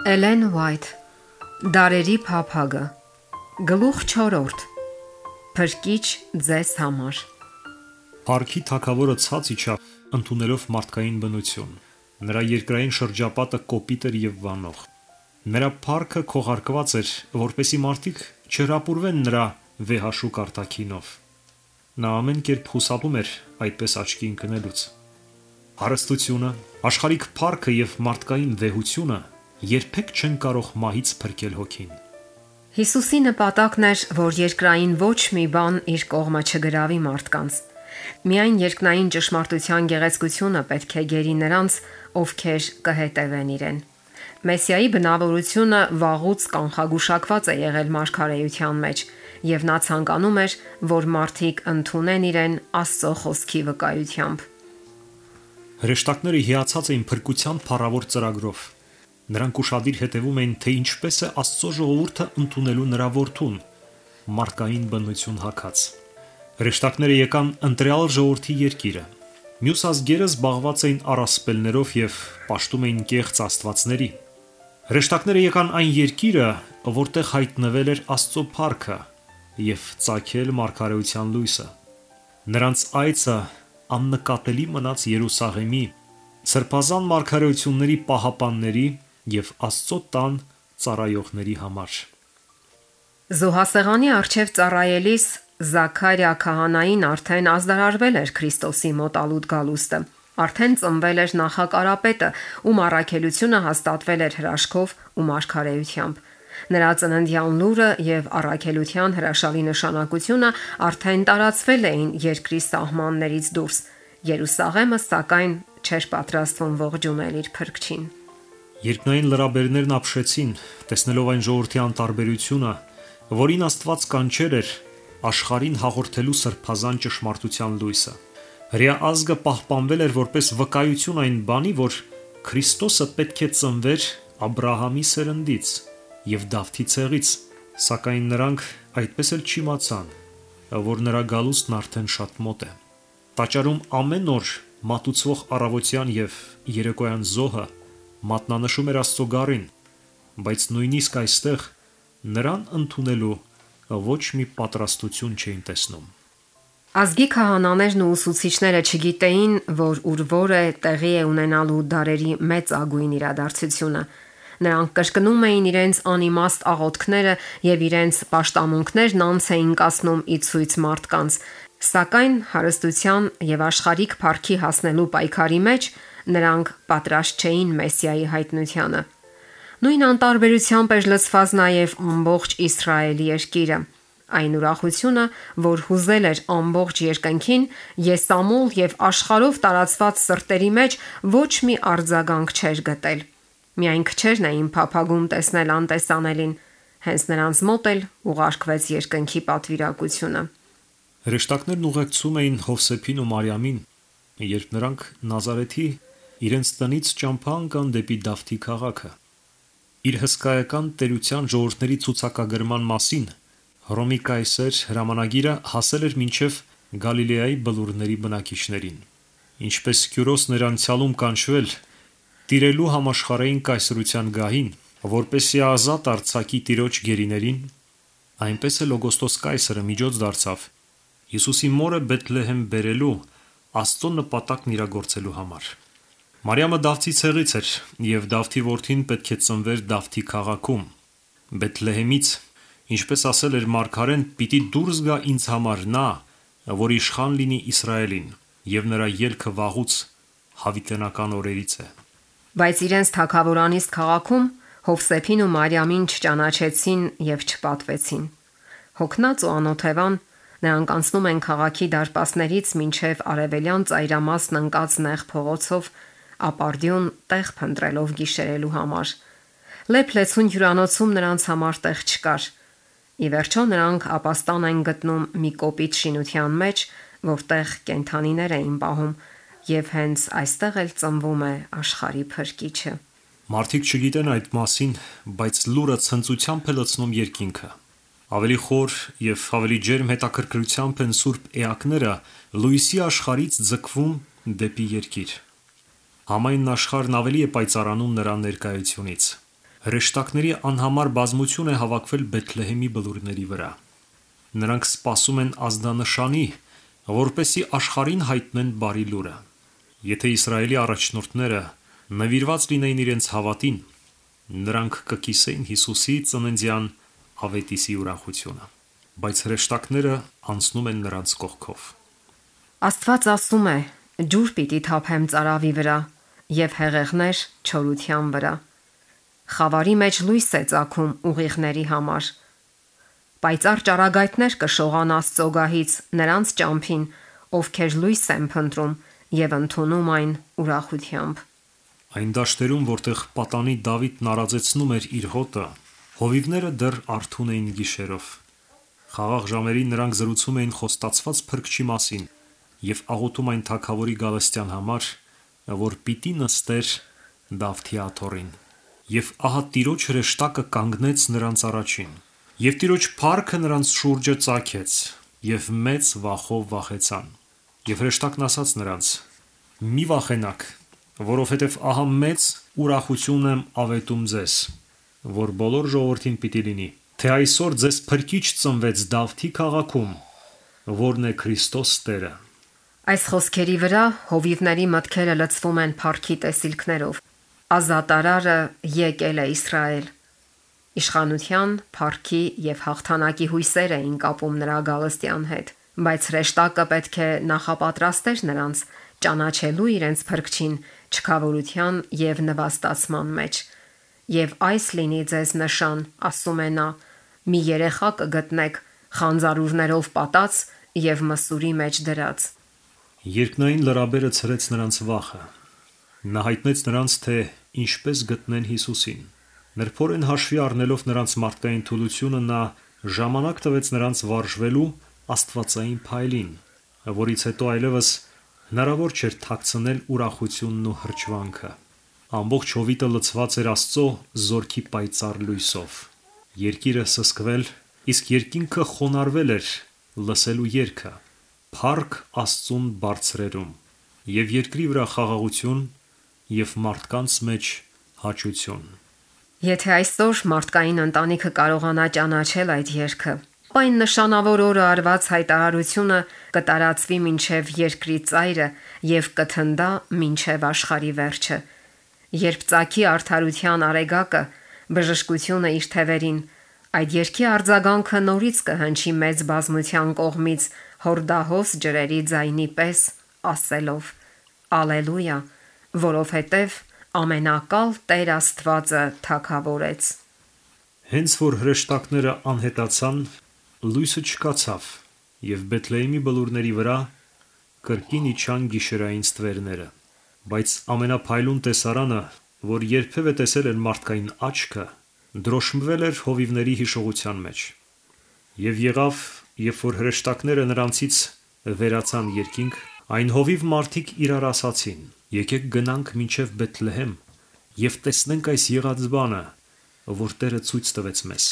Էլեն Ուայթ Դարերի փափագը Գլուխ 4 Փրկիչ ձեզ համար Փարքի թագավորը ցած իջավ, ընդունելով մարդկային բնություն։ Նրա երկրային շրջապատը կոպիտ էր եւ վանող։ Նրա փարքը քողարկված էր, որպեսզի մարդիկ չհրապուրվեն նրա վեհաշուկ արտաքինով։ Նա ամեն կերպ խուսափում էր այդպես աչքի ընկնելուց։ Հարստությունը, աշխարհիկ փարքը եւ մարդկային վեհությունը երբեք չեն կարող մահից փրկել հոգին։ Հիսուսի նպատակն էր, որ երկրային ոչ մի բան իր կողմը չգրավի մարդկանց։ Միայն երկնային ճշմարտության գեղեցկությունը պետք է գերի նրանց, ովքեր կհետևեն իրեն։ Մեսիայի բնավորությունը վաղուց կանխագուշակված է եղել մարգարեության մեջ, եւ նա ցանկանում էր, որ մարդիկ ընդունեն իրեն Աստծո խոսքի վկայությամբ։ Հրեշտակները հիացած էին փրկության փառավոր ծրագրով։ Նրանք ուշադիր հետևում էին, թե ինչպես է Աստծո ժողովուրդը ընդունելու նրա որդուն, մարդկային բնություն հագած։ Հրեշտակները եկան ընտրյալ ժողովրդի երկիրը։ Մյուս ազգերը զբաղված էին առասպելներով եւ պաշտում էին կեղծ աստվածների։ Հրեշտակները եկան այն երկիրը, որտեղ հայտնվել էր Աստծո փառքը եւ ծագել մարգարեության լույսը։ Նրանց այցը աննկատելի մնաց Երուսաղեմի, սրբազան մարգարեությունների պահապանների եւ Աստծո տան ծառայողների համար։ Զոհասեղանի առջև ծառայելիս Զաքարիա քահանային արդեն ազդարարվել էր Քրիստոսի մոտալուտ գալուստը։ Արդեն ծնվել էր նախակարապետը, ում առաքելությունը հաստատվել էր հրաշքով ու մարգարեությամբ։ Նրա ծննդյան լուրը եւ առաքելության հրաշալի նշանակությունը արդեն տարածվել էին երկրի սահմաններից դուրս։ Երուսաղեմը սակայն չէր պատրաստվում ողջունել իր փրկչին։ Երկնային լրաբերներն ապշեցին, տեսնելով այն ժողովրդի անտարբերությունը, որին Աստված կանչեր էր աշխարհին հաղորդելու սրբազան ճշմարտության լույսը։ Հրեա ազգը պահպանվել էր որպես վկայություն այն բանի, որ Քրիստոսը պետք է ծնվեր Աբրահամի սերնդից եւ Դավթի ցեղից, սակայն նրանք այդպես էլ չիմացան, որ նրա գալուստն արդեն շատ մոտ է։ Տաճարում ամեն օր մատուցվող առավոտյան եւ երեկոյան զոհը մատնանշում էր Աստծո գառին, բայց նույնիսկ այստեղ նրան ընդունելու ոչ մի պատրաստություն չէին տեսնում։ Ազգի քահանաներն ու ուսուցիչները չգիտեին, որ ուրվոր է տեղի է ունենալու դարերի մեծ ագույն իրադարձությունը։ Նրանք կրկնում էին իրենց անիմաստ աղոթքները եւ իրենց պաշտամունքներն անց էին կասնում ի ցույց մարդկանց, սակայն հարստության եւ աշխարհիկ փառքի հասնելու պայքարի մեջ նրանք պատրաստ չէին Մեսիայի հայտնությանը։ Նույն անտարբերությամբ էր լցված նաև ամբողջ Իսրայելի երկիրը։ Այն ուրախությունը, որ հուզել էր ամբողջ երկնքին, եսամուլ եւ աշխարհով տարածված սրտերի մեջ ոչ մի արձագանք չէր գտել։ Միայն քչերն էին փափագում տեսնել անտեսանելին, հենց նրանց մոտ էլ ուղարկվեց երկնքի պատվիրակությունը։ Հրեշտակներն ուղեկցում էին Հովսեփին ու Մարիամին, երբ նրանք Նազարեթի իրենց տնից ճամփա ընկան դեպի Դավթի քաղաքը։ Իր հսկայական տերության ժողովրդների ցուցակագրման մասին Հռոմի կայսեր հրամանագիրը հասել էր մինչև Գալիլեայի բլուրների բնակիչներին։ Ինչպես Քյուրոսն էր անցյալում կանչվել տիրելու համաշխարհային կայսրության գահին, որպեսզի ազատ արձակի տիրոջ գերիներին, այնպես էլ Օգոստոս կայսրը միջոց դարձավ Հիսուսի մորը Բեթլեհեմ բերելու Աստծո նպատակն իրագործելու համար։ Մարիամը Դավթի ցեղից էր, եւ Դավթի որդին պետք է ծնվեր Դավթի քաղաքում, Բեթլեհեմից, ինչպես ասել էր մարգարեն, պիտի դուրս գա ինձ համար նա, որ իշխան լինի Իսրայելին, եւ նրա ելքը վաղուց հավիտենական օրերից է։ Բայց իրենց թագավորանիստ քաղաքում Հովսեփին ու Մարիամին չճանաչեցին եւ չպատվեցին։ Հոգնած ու անօթևան նրանք անցնում են քաղաքի դարպասներից մինչև արևելյան ծայրամասն ընկած նեղ փողոցով, ապարդյուն տեղ փնտրելով գիշերելու համար։ Լեփլեցուն հյուրանոցում նրանց համար տեղ չկար։ Ի վերջո նրանք ապաստան են գտնում մի կոպիտ շինության մեջ, որտեղ կենդանիներ էին պահում, եւ հենց այստեղ էլ ծնվում է աշխարհի փրկիչը։ Մարդիկ չգիտեն այդ մասին, բայց լուրը ցնծությամբ է լցնում երկինքը։ Ավելի խոր եւ ավելի ջերմ հետաքրքրությամբ են սուրբ էակները լույսի աշխարհից ձգվում դեպի երկիր։ Համայն աշխարհն ավելի է պայծառանում նրա ներկայությունից։ Հրեշտակների անհամար բազմություն է հավաքվել Բեթլեհեմի բլուրների վրա։ Նրանք սպասում են ազդանշանի, որպեսզի աշխարհին հայտնեն բարի լուրը։ Եթե Իսրայելի առաջնորդները նվիրված լինեին իրենց հավատին, նրանք կկիսեին Հիսուսի ծննդյան ավետիսի ուրախությունը, բայց հրեշտակները անցնում են նրանց կողքով։ Աստված ասում է. «Ջուր պիտի թափեմ ծարավի վրա եւ հեղեղներ չորության վրա»։ Խավարի մեջ լույս է ծագում ուղիղների համար։ Պայծառ ճառագայթներ կշողան Աստծո գահից նրանց ճամփին, ովքեր լույս են փնտրում եւ ընդունում այն ուրախությամբ։ Այն դաշտերում, որտեղ պատանի Դավիթն արածեցնում էր իր հոտը, հովիվները դեռ արթուն էին գիշերով։ Խաղաղ ժամերին նրանք զրուցում էին խոստացված փրկչի մասին եւ աղոթում այն թագավորի գալստյան համար, որ պիտի նստեր Դավթի աթոռին։ Եվ ահա Տիրոջ հրեշտակը կանգնեց նրանց առաջին, եւ Տիրոջ փառքը նրանց շուրջը ծագեց, եւ մեծ վախով վախեցան։ Եվ հրեշտակն ասաց նրանց. «Մի վախենաք, որովհետև ահա մեծ ուրախություն եմ ավետում ձեզ, որ բոլոր ժողովրդին պիտի լինի, թե այսօր ձեզ փրկիչ ծնվեց Դավթի քաղաքում, որն է Քրիստոս Տերը»։ Այս խոսքերի վրա հովիվների մտքերը լցվում են փառքի տեսիլքներով։ Ազատարարը եկել է Իսրայել։ Իշխանության, փառքի եւ հաղթանակի հույսեր էին կապում նրա գալստյան հետ, բայց հրեշտակը պետք է նախապատրաստեր նրանց ճանաչելու իրենց փրկչին չքավորության եւ նվաստացման մեջ։ Եվ այս լինի ձեզ նշան, ասում է նա, մի երեխա կգտնեք խանձարուրներով պատած եւ մսուրի մեջ դրած։ Երկնային լրաբերը ցրեց նրանց վախը։ Նա հայտնեց նրանց, թե ինչպես գտնեն Հիսուսին։ Նրբորեն հաշվի առնելով նրանց մարդկային թուլությունը, նա ժամանակ տվեց նրանց վարժվելու աստվածային փայլին, որից հետո այլևս հնարավոր չէր թաքցնել ուրախությունն ու հրճվանքը։ Ամբողջ հովիտը լցված էր Աստծո զորքի պայծառ լույսով։ Երկիրը սսկվել, իսկ երկինքը խոնարհվել էր լսելու երգը, փառք Աստծուն բարձրերում, եւ երկրի վրա խաղաղություն եւ մարդկանց մեջ հաճություն։ Եթե այսօր մարդկային ընտանիքը կարողանա ճանաչել այդ երգը, այն նշանավոր օրը արված հայտարարությունը կտարածվի մինչև երկրի ծայրը եւ կթնդա մինչև աշխարհի վերջը։ Երբ ծագի արդարության արեգակը, բժշկությունը իր թևերին, այդ երկի արձագանքը նորից կհնչի մեծ բազմության կողմից հորդահոս ջրերի ձայնի պես, ասելով. Ալելույա, որովհետև ամենակալ Տեր Աստվածը թագավորեց։ Հենց որ հրեշտակները անհետացան, լույսը չկացավ, եւ Բեթլեհեմի բլուրների վրա կրկին իջան գիշերային ստվերները, բայց ամենափայլուն տեսարանը, որ երբևէ տեսել էր մարդկային աչքը, դրոշմվել էր հովիվների հիշողության մեջ։ Եվ եղավ, երբ որ հրեշտակները նրանցից վերացան երկինք, այն հովիվ մարդիկ իրար ասացին. «Եկեք գնանք մինչև Բեթլեհեմ եւ տեսնենք այս եղած բանը, որ Տերը ցույց տվեց մեզ»։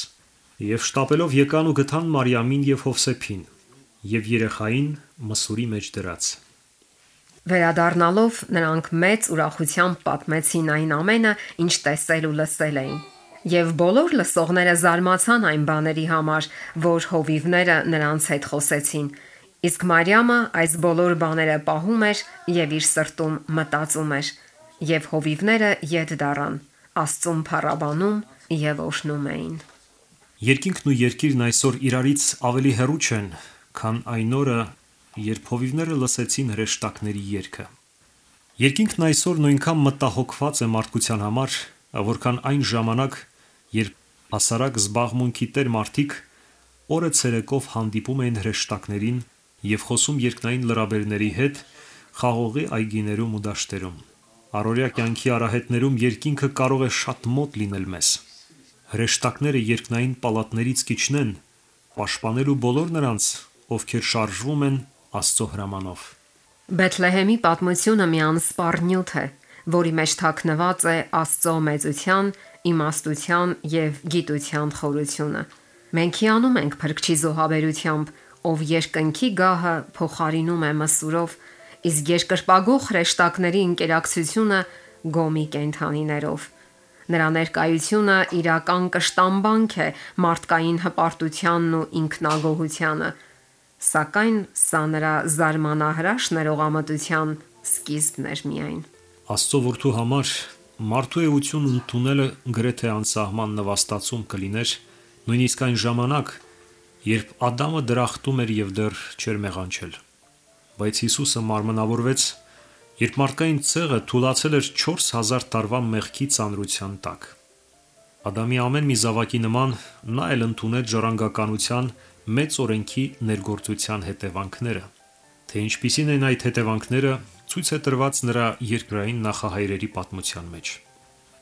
Եվ շտապելով եկան ու գտան Մարիամին եւ Հովսեփին եւ երեխային մսուրի մեջ դրած։ Վերադառնալով նրանք մեծ ուրախությամբ պատմեցին այն ամենը, ինչ տեսել ու լսել էին։ Եվ բոլոր լսողները զարմացան այն բաների համար, որ հովիվները նրանց հետ խոսեցին։ Իսկ Մարիամը այս բոլոր բաները պահում էր եւ իր սրտում մտածում էր, եւ հովիվները ետ դառան, Աստծուն փառաբանում եւ օրհնում էին։ Երկինքն ու երկիրն այսօր իրարից ավելի հեռու չեն, քան այն օրը, երբ հովիվները լսեցին հրեշտակների երգը։ Երկինքն այսօր նույնքան մտահոգված է մարդկության համար, որքան այն ժամանակ, երբ հասարակ զբաղմունքի տեր մարդիկ օրը ցերեկով հանդիպում էին հրեշտակներին եւ խոսում երկնային լրաբերների հետ խաղողի այգիներում ու դաշտերում։ Առօրյա կյանքի արահետներում երկինքը կարող է շատ մոտ լինել մեզ։ Հրեշտակները երկնային պալատներից կիջնեն, պաշտպանելու բոլոր նրանց, ովքեր շարժվում են Աստծո հրամանով։ Բեթլեհեմի պատմությունը մի անսպառ նյութ է, որի մեջ թաքնված է Աստծո մեծության, իմաստության եւ գիտության խորությունը։ Մենք հիանում ենք Փրկչի զոհաբերությամբ, ով երկնքի գահը փոխարինում է մսուրով, իսկ երկրպագող հրեշտակների ինկերակցությունը գոմի կենդանիներով։ Նրա ներկայությունը իրական կշտամբանք է մարդկային հպարտությանն ու ինքնագոհությանը, սակայն սա նրա զարմանահրաշ ներողամտության սկիզբն էր միայն։ Աստծո որդու համար մարդու էությունը ընդունելը գրեթե անսահման նվաստացում կլիներ, նույնիսկ այն ժամանակ, երբ Ադամը դրախտում էր եւ դեռ չէր մեղանչել։ Բայց Հիսուսը մարմնավորվեց, երբ մարդկային ցեղը թուլացել էր 4000 տարվա մեղքի ծանրության տակ։ Ադամի ամեն մի զավակի նման նա էլ ընդունել ժառանգականության մեծ օրենքի ներգործության հետևանքները։ Թե ինչպիսին են այդ հետևանքները, ցույց է տրված նրա երկրային նախահայրերի պատմության մեջ։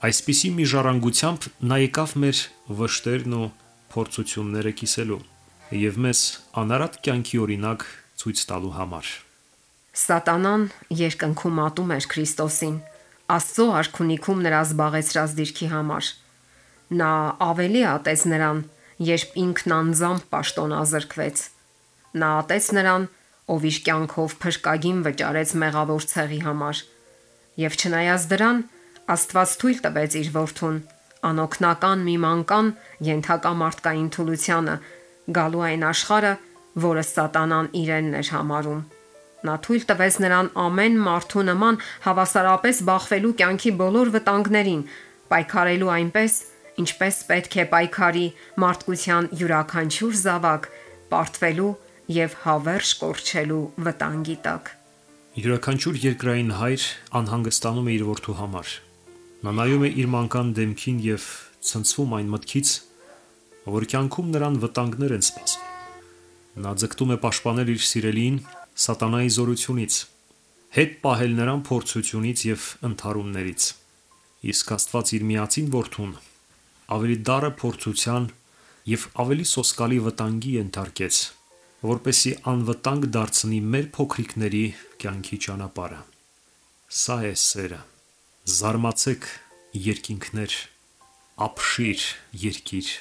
Այսպիսի մի ժառանգությամբ նա եկավ մեր վշտերն ու փորձությունները կիսելու եւ մեզ անարատ կյանքի օրինակ ցույց տալու համար։ Սատանան երկնքում ատում էր Քրիստոսին, Աստծո արքունիքում նրա զբաղեցրած դիրքի համար։ Նա ավելի ատեց նրան, երբ ինքն անձամբ պաշտոնազրկվեց։ Նա ատեց նրան, ով իր կյանքով փրկագին վճարեց մեղավոր ցեղի համար։ Եվ չնայած դրան, Աստված թույլ տվեց իր որդուն, անօգնական մի մանկան ենթակա մարդկային թուլությանը, գալու այն աշխարհը, որը Սատանան իրենն էր համարում։ Նա թույլ տվեց նրան ամեն մարդու նման հավասարապես բախվելու կյանքի բոլոր վտանգներին, պայքարելու այնպես, ինչպես պետք է պայքարի մարդկության յուրաքանչյուր զավակ, պարտվելու եւ հավերժ կորչելու վտանգի տակ։ Յուրաքանչյուր երկրային հայր անհանգստանում է իր որդու համար։ Նա նայում է իր մանկան դեմքին եւ ցնցվում այն մտքից, որ կյանքում նրան վտանգներ են սպասում։ Նա ձգտում է պաշտպանել իր սիրելիին սատանայի զորությունից, հետ պահել նրան փորձությունից եւ ընդհարումներից։ Իսկ Աստված իր միածին որդուն ավելի դառը փորձության եւ ավելի սոսկալի վտանգի ենթարկեց, որպեսզի անվտանգ դարձնի մեր փոքրիկների կյանքի ճանապարհը։ Սա է սերը։ Զարմացեք, երկինքներ, ապշիր, երկիր։